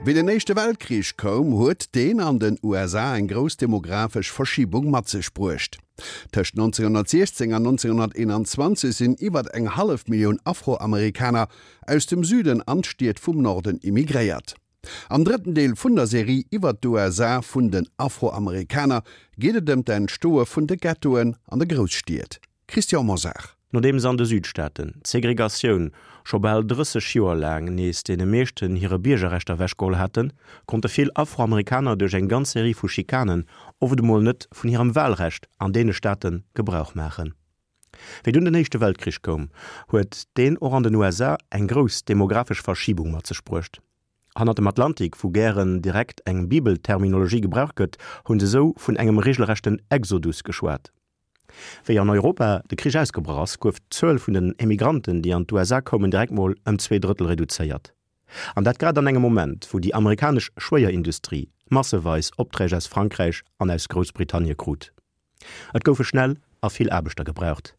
Wéi den Éischte Weltkrich koum, huet deen an den USA eng grouss demographesch Verschibung mat sech bruecht. Tëscht 1916 an 1921 sinn iwwer eng hallef Millioun Afroamerikaner aus dem Süden an d'Stied vum Norden immigréiert. Am drëtten Deel vun der Serie iwwer d'USA vun den Afroamerikaner geet et ëm d'Entstoe vun de Ghettoen an de Grousstied. Christian Mosar. Nodeems an de Südstaaten d'Segregatioun scho bal 30 Joer laang nees deene meeschten hire Biergerrechter ewechgeholl haten, konnte vill Afroamerikaner duerch eng ganz Serie vu Schikanen oft emol net vun hirem Walrecht an deene Staate Gebrauch maachen. Wéi dunn den Éischte Weltkrich koum, huet deen och an den USA eng grouss demographesch Verschibung mat sech bruecht. Hannert dem Atlantik, wou gären direkt eng Bibelterminologie gebraucht gëtt, hu se sou vun engem regelrechten Exodus geschwat. Wéi an Europa de Krich ausgebrach ass, gouf d'Zuel vun den Emigranten, déi an d'USA koumen, direkt mol ëm 2/3 reduzéiert. An dat grad an engem Moment, wou déi amerikanesch Schwéierindustrie masseweis Opträg aus Frankräich an aus Groussbritannie krut. Et goufe schnell a vill Aarbechter gebraucht.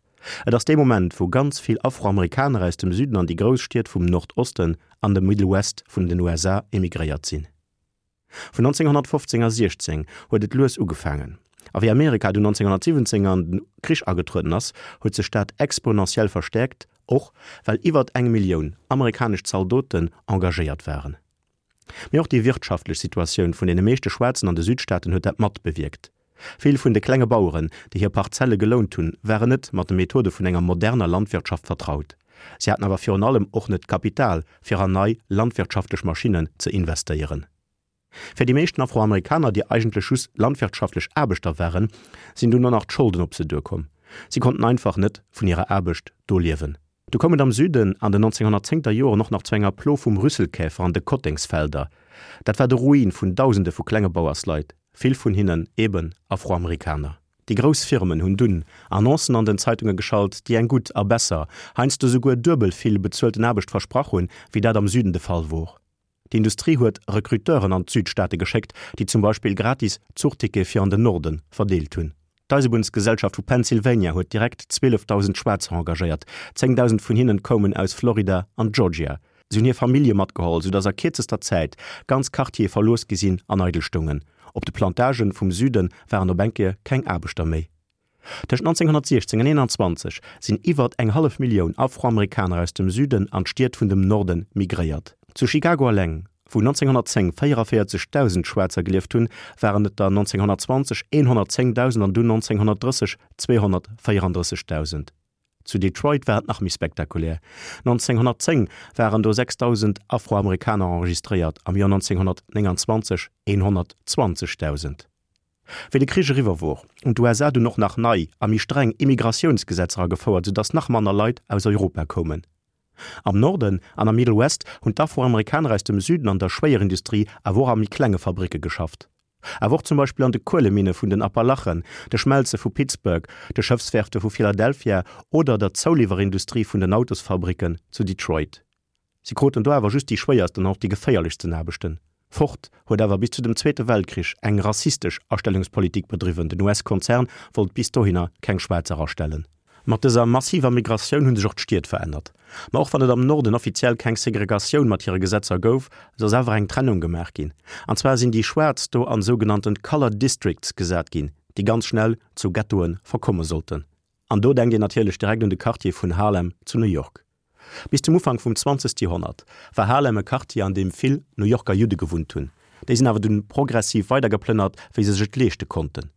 Et ass dee Moment, wou ganz vill Afroamerikaner aus dem Süden an déi grouss Stied vum Nordosten an dem Middle West vun den USA emigréiert sinn. Vun 1915 a 16 huet et lues ugefaangen, a wéi Amerika dunn 1917 an den Krich agetrueden ass, huet sech dat exponentiell verstäerkt, och well iwwert eng Millioun amerikanesch Zaldoten engagéiert waren. Mee och déi wirtschaftlech Situatioun vun deene meeschte Schwaarzen an de Südstaaten huet dat mat bewierkt. Vill vun de klenge Baueren, déi hir Parzelle gelount hunn, waren net mat de Methode vun enger moderner Landwirtschaft vertraut. Si haten awer virun allem och net d'Kapital, fir an nei landwirtschaftlech Maschinnen ze investéieren. Fir déi meeschten Afroamerikaner, déi eigentlech just landwirtschaftlech Aarbechter waren, sinn dunn och nach d'Scholden op se duerkomm. Si konnten einfach net vun hirer Aarbecht do liewen. Du koum et am Süden an den 1910 ter Joren och nach zu enger Plo vum Rüsselkäfer an de Kottengsfelder. Dat war de Ruin vun Dausende vu klenge Bauersleit, vill vun hinnen eben Afroamerikaner. Déi grouss Firmen hunn dunn Annoncen an den Zeitunge geschalt, déi eng gutt a besser, heiansdo souguer duebel vill bezuelten Aarbecht versprach hunn, wéi dat am Süden de Fall wor. D'Industrie huet Recruteuren an d'Südstaate geschéckt, déi zum Beispill gratis Zuchtickete fir an den Norde verdeelt hunn. D'Eisebunnsgesellschaft vu Pennsylvania huet direkt 12.000 Schwaarzer engagéiert, 10.000 vun hinnen koumen aus Florida an Georgia. Si hunn hir Famillje matgeholl, soudass a kierzester Zäit ganz Quartiere verlooss gi sinn an eidel stoungen. Op de Plantagen vum Süde waren op eng Kéier keng Aarbechter méi. Tëscht 1916 an 21 sinn iwwert eng hallef Millioun Afroamerikaner aus dem Süden an d'Stied vun dem Norde migréiert. Zu Chicago eleng, wou 1910 44.000 Schwaarzer gelieft hunn, waren et der 1920 110.000 an dunn 1930 234.000. Zu Detroit war et nach méi spektakulär, 1910 waren do 6.000 Afroamerikaner enregistréiert, am Joer 1929 120.000. Wéi de Krich eriwwer wor, hunn d'USA dunn och nach nei a méi streng Immigratiounsgesetzer agefouert, soudass nach manner Leit aus Europa koumen. Am Norden an am Middle West hunn d'Afroamerikaner aus dem Süden an der Schwéierindustrie, awer och a méi klenge Fabricke geschafft. Awer och zum Beispill an de Kueleminne vun den Appalachen, de Schmelze vu Pittsburgh, de Schëffswerfte vu Philadelphia oder der Zouliwwerindustrie vun den Autosfabricken zu Detroit. Si kruten do awer just déi schwéiersten an och déi geféierlechsten Aarbechten. Ford huet awer bis zu dem Zweete Weltkrich eng rassistesch Astellungspolitik bedriwwen, den US-Konzern wollt bis dohinner keng Schwaarzer astellen. Mat dëser massiver Migratioun hu sech och d'Stied verännert. Ma och wann et am Norden offiziell keng Segregatioun mat hire Gesetzer gouf, sou ass awer eng Trennung gemaach ginn. An zwar sinn déi Schwaarz do an sougenannten Colored Districts gesat ginn, déi ganz schnell zu Ghettoe verkomme sollten. An do denkt een natierlech direkt un de Quartier vun Harlem zu New York. Bis zum Ufank vum 20. Joerhonnert war Harlem e Quartier, an deem vill New Yorker Judde gewunnt hunn. Déi sinn awer dunn progressiv weidergeplënnert, wéi se sech et leeschte konnten.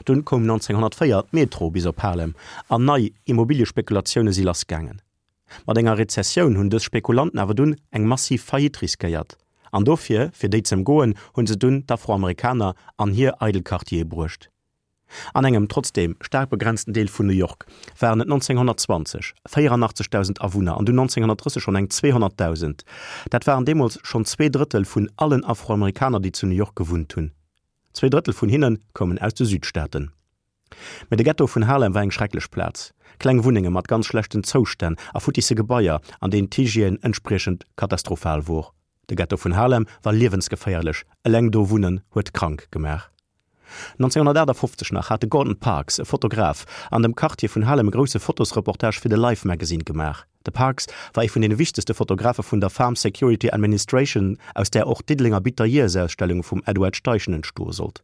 Dunn koum 1904 d'Metro bis op Harlem an nei Immobiliespekulatioune si lassgaangen. Mat enger Rezessioun hunn dës Spekulanten awer dunn eng massiv Faillite riskéiert. An dofir, fir déi z'ëmgoen, hunn se dunn d'Afroamerikaner an hir eidel Quartiere bruecht. An engem trotzdeem staark begrenzten Deel vun New York waren et 1920 84.000 Awunner an dunn 1930 schonn eng 200.000. Dat waren deemools schonn 2/3 vun allen Afroamerikaner, déi zu New York gewunnt hunn. 2/3 vun hinne koumen aus de Südstaaten. Mee de Ghetto vun Harlem war eng schrecklech Plaz. Kleng Wunnenge mat ganz schlechten Zoustänn a futtisse Gebaier, an deenen d'Hygiène entspriechend katastrophal wor. De Ghetto vun Harlem war liewensgeféierlech, eleng do wunnen huet krank gemaach. 1958 nach hat de Gordon Parks, e Fotograf, an dem Quartier vun Harlem e grousse Fotosreportage fir de Life Magazine gemaach. De Parks war ee vun deene wichtegste Fotografe vun der Farm Security Administration, aus där och d'Diddelenger Bitter Years-Ausstellung vum Edward Steichen entstoe sollt.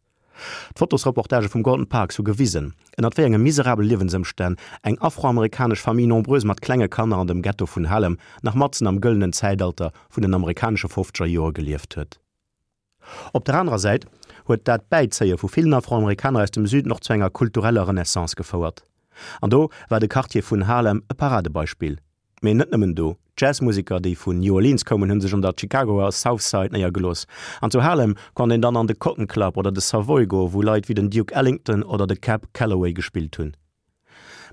D'Fotosreportagë vum Gordon Parks hu gewisen, ënnert wéi enge miserabele Liewensëmstänn eng afroamerikanesch Famille nombreuse mat klenge Kanner an dem Ghetto vun Harlem nach matzen am gëllenen Zäitalter vun den amerikanesche fofzeger Joer gelieft huet. Op der anerer Säit huet dat Bäizéie vu villen Afroamerikaner aus dem Süden och zu enger kultureller Renaissance gefouert. An do war de Quartier vun Harlem e Paradebeispill. Mee net nëmmen do, D'Jazzmuseker, déi vun New Orleans koumen, hu sech an der Chicagoer South Side néiergelooss. An zu Harlem konnt een dann an de Cotton Club oder de Savoy goen, wou Leit wéi den Duke Ellington oder de Cab Calloway gespillt hunn.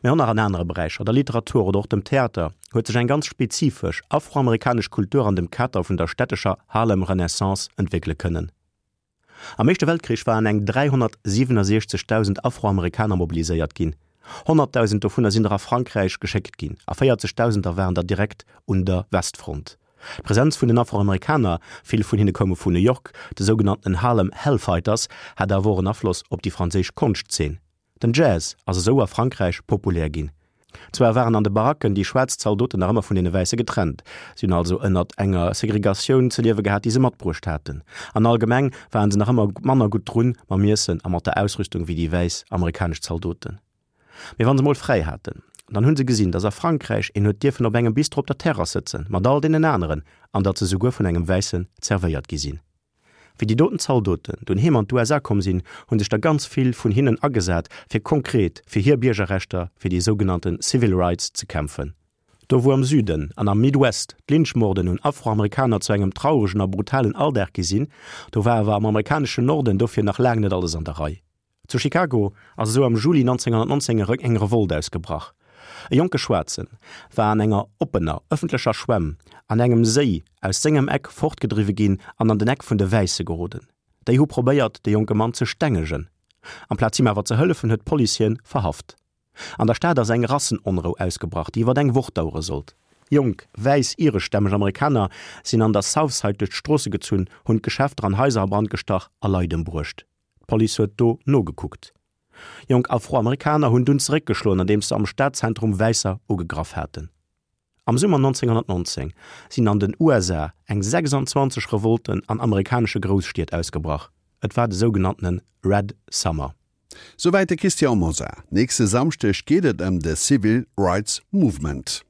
Mee och nach an anere Beräicher, der Literatur oder och dem Theater, huet sech eng ganz spezifesch afroamerikanesch Kultur an dem Kader vun der stättescher Harlem Renaissance entwéckele kënnen. Am Éischte Weltkrich waren eng 367.000 Afroamerikaner mobiliséiert ginn. 100.000 dovunner sinn der a Frankräich geschéckt ginn a 40.000 der waren der direkt un der Westfront. D'Presenz vun den Afroamerikaner, vill vun hinne koume vun New York, de sougenannten Harlem Hellfighters, hat awer och en Afloss op déi franséisch Konschtzeen. Den Jazz ass esou a Frankräich populär ginn. Zwar waren an de Baracken déi schwaarz Zaldoten nach ëmmer vun deene Wäisse getrennt, si hunn also ënnert enger Segregatioun ze liewe gehat, déi se matbruecht haten, an allgemeng waren se nach ëmmer manner gutt drun mam Iessen a mat der Ausrüstung wéi déi wäiss amerikanesch Zaldoten. Mee wann se mol fräi haten, dann hunn se gesinn, datt a Frankräich een huet dierfen op engem Bistro op der Terrass sëtzen, mat all deenen aneren, an datt se souguer vun engem Wäissen zerwéiert gi sinn. Wéi déi doten Zaldoten dunn heem an d'USA komm sinn, hu sech der ganz vill vun hinnen agesat, fir konkret fir hir Biergerrechter, fir déi sougenannte Civil Rights ze kämpfen. Do wou am Süden an am Midwest d'Lynchmorden un Afroamerikaner zu engem trauregen a brutalen Alldag gi sinn, do war awer am amerikaneschen Norden dofir nach laang net alles an der Rei. Zu Chicago ass esou am Juli 1919 eng Revolt ausgebrach. E jonke Schwaarze war an enger oppener ëffentlecher Schwämm an engem Séi aus sengem Eck fortgedriwwe ginn an an den Eck vun de Wäisse geroden. Déi hu probéiert, de jonke Mann ze stengegen. Amplaz him awer ze hëllefen, huet d'Police hien verhaft. An der Stad ass eng Rassenonrou ausgebrach, déi iwwer eng Woch dauere sollt. Jonk, wäiss, ireschstämmeg Amerikaner sinn an der South Side duerch d'Stroosse gezunn, hunn d'Geschäfter an Haiser a Brand gestach a Leit ëmbruecht. D'Police huet do nogekuckt. Jonk Afroamerikaner hunn dunn zeréckgeschloen, andeems se am Stadzentrum Wäisser ugegraff haten. Am Summer 1919 sinn an den USA eng 26 Revolten an amerikanesche Grousstied ausgebrach. Et war de sougenanntene Red Summer. Souwäit de Christian Mosar. Nächste Samschdeg geet et ëm de Civil Rights Movement.